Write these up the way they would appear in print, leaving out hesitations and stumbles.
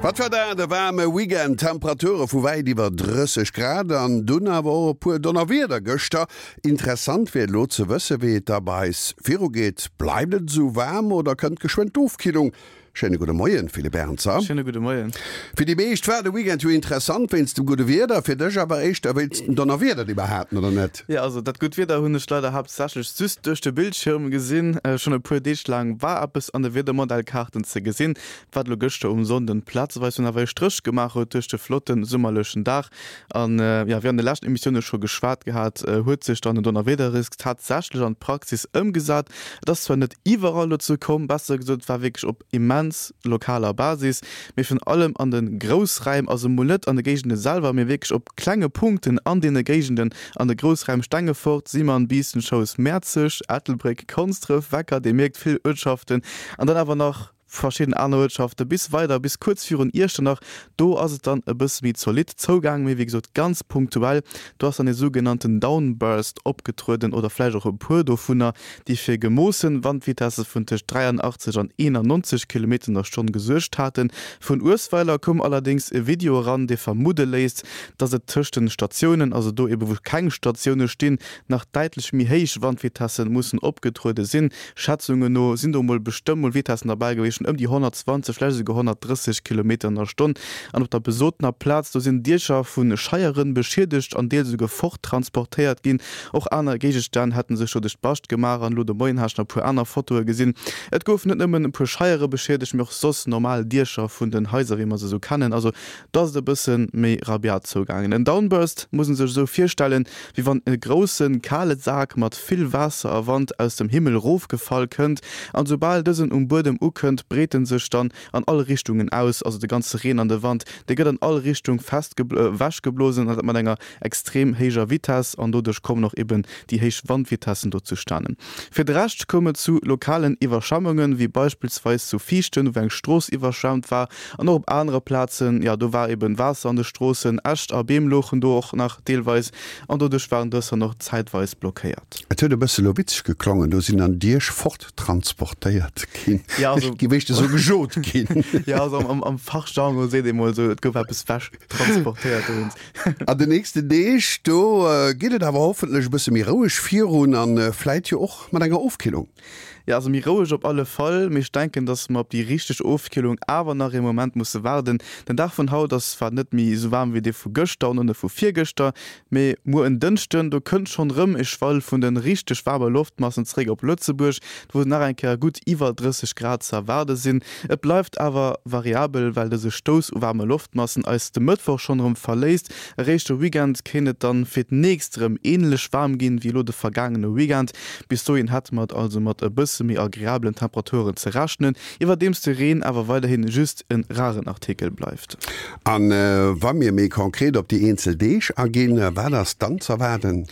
Wat war dat e waarme Weekend! Temperature vu wäit iwwer 30 Grad an dunn awer och e puer Donnerwieder gëschter. Interessant wier elo ze wësse wéi et da bei eis virugeet. Bleift et esou waarm oder kënnt geschwënn d'Ofkillung? Schéine gudde Moien, Philippe Ernzer. Schéine gudde Moien. Fir déi meescht war de Weekend jo interessant wéinst dem gudde Wieder, fir dech awer éischter wéinst dem Donnerwieder, déi mer haten, oder net? Jo, also dat gutt Wieder hunn ech leider haaptsächlech just duerch de Bildschirm gesinn. Schonn e puer Deeg laang war eppes an de Wiedermodellkaarten ze gesinn, wat elo gëschter um Sonnden plazeweis dunn awer e Stréch gemaach huet duerch de flotte summerlechen Dag. An jo, wéi an de leschten Emissioune scho geschwat gehat, huet sech dann den Donnerwiederrisk tatsächlech an d'Praxis ëmgesat. Et ass zwar net iwwerall dozou komm, besser gesot, et war wierklech op immens lokaler Basis, mee virun allem an de Groussräim, also mol net an de Géigende selwer, mee wierklech op klenge Punkten an deene Géigenden, an de Groussräim Stengefort, Simern, Biissen, Schous, Mäerzeg, Ettelbréck, Konsdref, Wecker, Dir mierkt, vill Uertschaften an dann awer nach verschidden aner Uertschafte bis weider bis kuerz virun Iechternach, do ass et dann e bësse méi zolidd zougaang, mee wéi gesot ganz punktuell. Do ass dann e sougenannten Downburst opgetrueden oder vläicht och e puer dovunner, déi fir gemoossen Wandvitesse vun tëscht 83 an 91 Kilometer an der Stonn gesuergt haten. Vun Uesweiler koum allerdéngs e Video eran, dee vermudde léisst, dass et tëscht den Statiounen, also do ebe wou keng Statioune stinn, nach däitlech méi héich Wandvitesse mussen opgetruede sinn. Schätzungen no sinn do mol bestëmmt mol Vitessen derbäi gewiescht vun ëm déi 120, vläicht esouguer 130 Kilometer an der Stonn. An op der besotener Plaz, do sinn Diecher vu Scheieren beschiedegt an deels esouguer forttransportéiert ginn. Och aner Géigestänn hätte sech doduerch d'Bascht gemaach. An elo de Moien hat ech nach e puer aner Fotoe gesinn. Et goufen net nëmmen e puer Scheiere beschiedegt, mee och soss normal Diecher vun den Haiser, wéi mer se esou kennen. Also do ass et e bësse méi rabiat zougaangen. En Downburst muss en sech esou virstellen, wéi wann e grousse kale Sak mat vill Waasser a Wand aus dem Himmel rofgefall kënnt, an soubal dësen um Buedem ukënnt, breet en sech dann an all Richtungen aus, also de ganze Reen an de Wand, dee gëtt an all Richtung fest ewechgeblosen, an dat mat enger extrem héijer Vitess, an doduerch kommen och eben déi héich Wandvitessen do zustanen. Fir de Rescht koum et zu lokalen Iwwerschwemmungen, wéi beispillsweis zu Viichten, wou eng Strooss iwwerschwemmt war, An och op anere Plazen, jo, do war eben Waasser an de Stroossen, Äscht a Beem louchen do och nach deelweis an doduerch waren dës dann och zäitweis blockéiert. Et huet e bësse lo witzeg geklongen, do sinn dann Dierch forttransportéiert ginn, Ja, also, gi wéischt esou gejot ginn. Ja, also am, am Fachjargon seet ee mol esou, et gouf eppes wechtransportéiert dowéinst. An den nächsten Deeg, do geet et awer hoffentlech e bësse méi roueg virun an vläit jo och mat enger Ofkillung. Jo, also méi roueg op alle Fall, mee ech denken, dass mer op déi richteg Ofkillung awer nach ee Moment musse waarden. Den Dag vun haut ass zwar net méi esou waarm wéi dee vu gëschter an och net vu virgëschter, mee muer en Dënschden, do kënnt schonn erëm e Schwall vun de richteg waarme Loftmassen zeréck op Lëtzebuerg, wou nach eng Kéier gutt iwwer 30 Grad ze erwaarde sinn. Et bleift awer variabel, well dëse Stouss u waarme Loftmassen eis de Mëttwoch schonn erëm verléisst. Eréischt de Weekend kéint et dann fir d'nächst erëm änlech waarm ginn wéi elo de vergaangene Weekend. Bis dohin hätte mer et also mat e bësse méi agreablen Temperaturen ze rechnen, iwwerdeems de Reen awer weiderhin just e raren Artikel bleift. A wa mir méi konkret op déi eenzel Deeg aginn, wat ass dann z'erwaarden?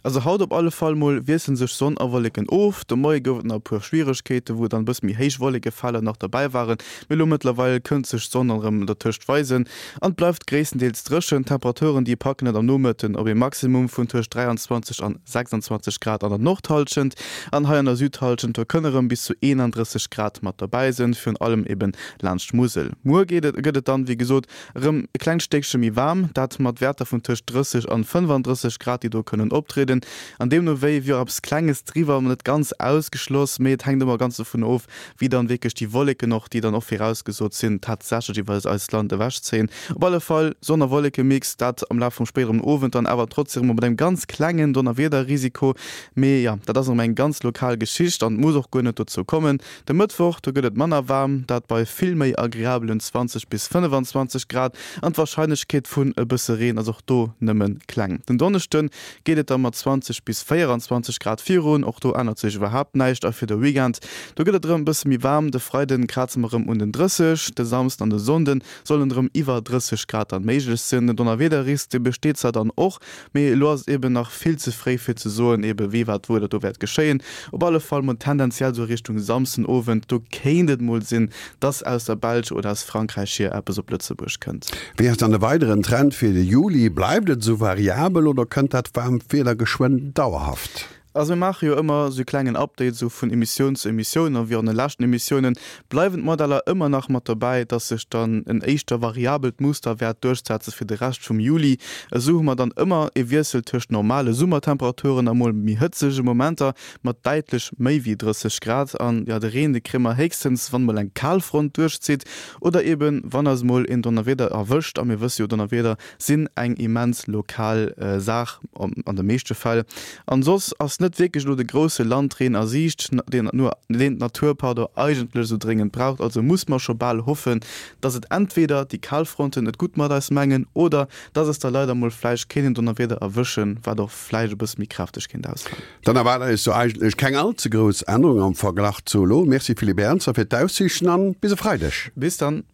Also haut op alle Fall mol wiessele sech Sonn a Wolleken of. De Moie gouf et nach e puer Schwieregkeete wou dann e bësse méi héich Wollekefeler nach derbäi waren, mee elo mëttlerweil kënnt sech d'Sonn dann erëm dertëscht weisen an et bleift gréisstendeels dréchen. D'Temperaturen déi packen et am Nomëtten op ee Maximum vun tëscht 23 an 26 Grad an der Nordhallschent an hei an der Südhallschent do kënne rëm bis zu 31 Grad mat derbäi sinn, virun allem eben laanscht d'Musel. Muer geet et gëtt et dann wéi gesot erëm e klengt Stéckche méi waarm, dat mat Wäerter vun tëscht 30 an 35 Grad déi do kënnen optrieden an deemno wéi wier och eppes klenges driwwer, net ganz ausgeschloss, mee et hänkt ëmmer ganz dovun of, wéi dann wierklech déi Wolleken och, déi dann och virausgesot sinn, tatsächlech iwwer eist Land ewechzéien. Op alle Fall Sonn a Wollekemix, dat am Laf vum spéideren Owend dann awer trotzdem erëm mat engem ganz klengen Donnerwiederrisiko. Mee jo, dat ass erëm eng ganz lokal Geschicht an et muss och guer net dozou kommen. De Mëttwoch, do gëtt et manner waarm, dat bei vill méi agreabelen 20 bis 25 Grad an d'Warscheinlechkeet vun e bësse Reen ass och do nëmme kleng. Den Donneschde geet et da mat 20 bis 24 Grad virun, och do ännert sech iwwerhaapt näischt. A fir de Weekend, do gëtt et erëm e bësse méi waarm, de Freiden kraze mer erëm un den 30, de Samsden an de Sonnde sollen erëm iwwer 30 Grad dann méiglech sinn. Den Donnerwiederrisk, dee besteet zwar dann och, mee elo ass et eben nach vill ze fréi fir ze soen ebe wéi, wat, wou dat do wäert geschéien. Op alle Fall mol tendenziell esou Richtung Samsdenowend, do kéint et mol sinn, dass aus der Belsch oder aus Frankräich hier eppes op Lëtzebuerg kënnt. Wéi ass dann de weideren Trend fir de Juli? Bleift et esou variabel oder kënnt dat waarmt Wieder geschwënn dauerhaft? Also mir maache jo ëmmer esou e klengen Update esou vun Emissioun zu Emissioun a wéi och an de leschten Emissiounen bleiwen d'Modeller ëmmer nach mat dobäi, dass sech dann en éischter variabelt Muster wäert duerchsetze fir de Rescht vum Juli. Esou hu mer dann ëmmer e Wiessel tëscht normale Summertemperaturen a mol méi hëtzege Momenter mat däitlech méi wéi 30 Grad. An jo, de Reen, de kréie mer héchstens, wann mol eng Kalfront duerchzitt oder eben wann eis mol een Donnerwieder erwëscht. A mir wësse jo, Donnerwieder sinn eng immens lokal Saach an de meeschte Fäll. An soss ass net wierklech elo de grousse Landreen a Siicht, deen d'Natur, pardon, eigentlech esou dréngend braucht. Also muss mer scho bal hoffen, dass et entweder déi Kalfronten et gutt mat eis mengen oder dass eis da leider mol vläicht kéint en Donnerwieder erwëschen, wat och vläicht e bësse méi kräfteg kéint ausfalen. Dann erwaart eis do eigentlech keng all ze grouss Ännerung am Verglach zu elo. Merci Philippe Ernzer fir d'Aussiichten an bis e Freideg. Bis dann.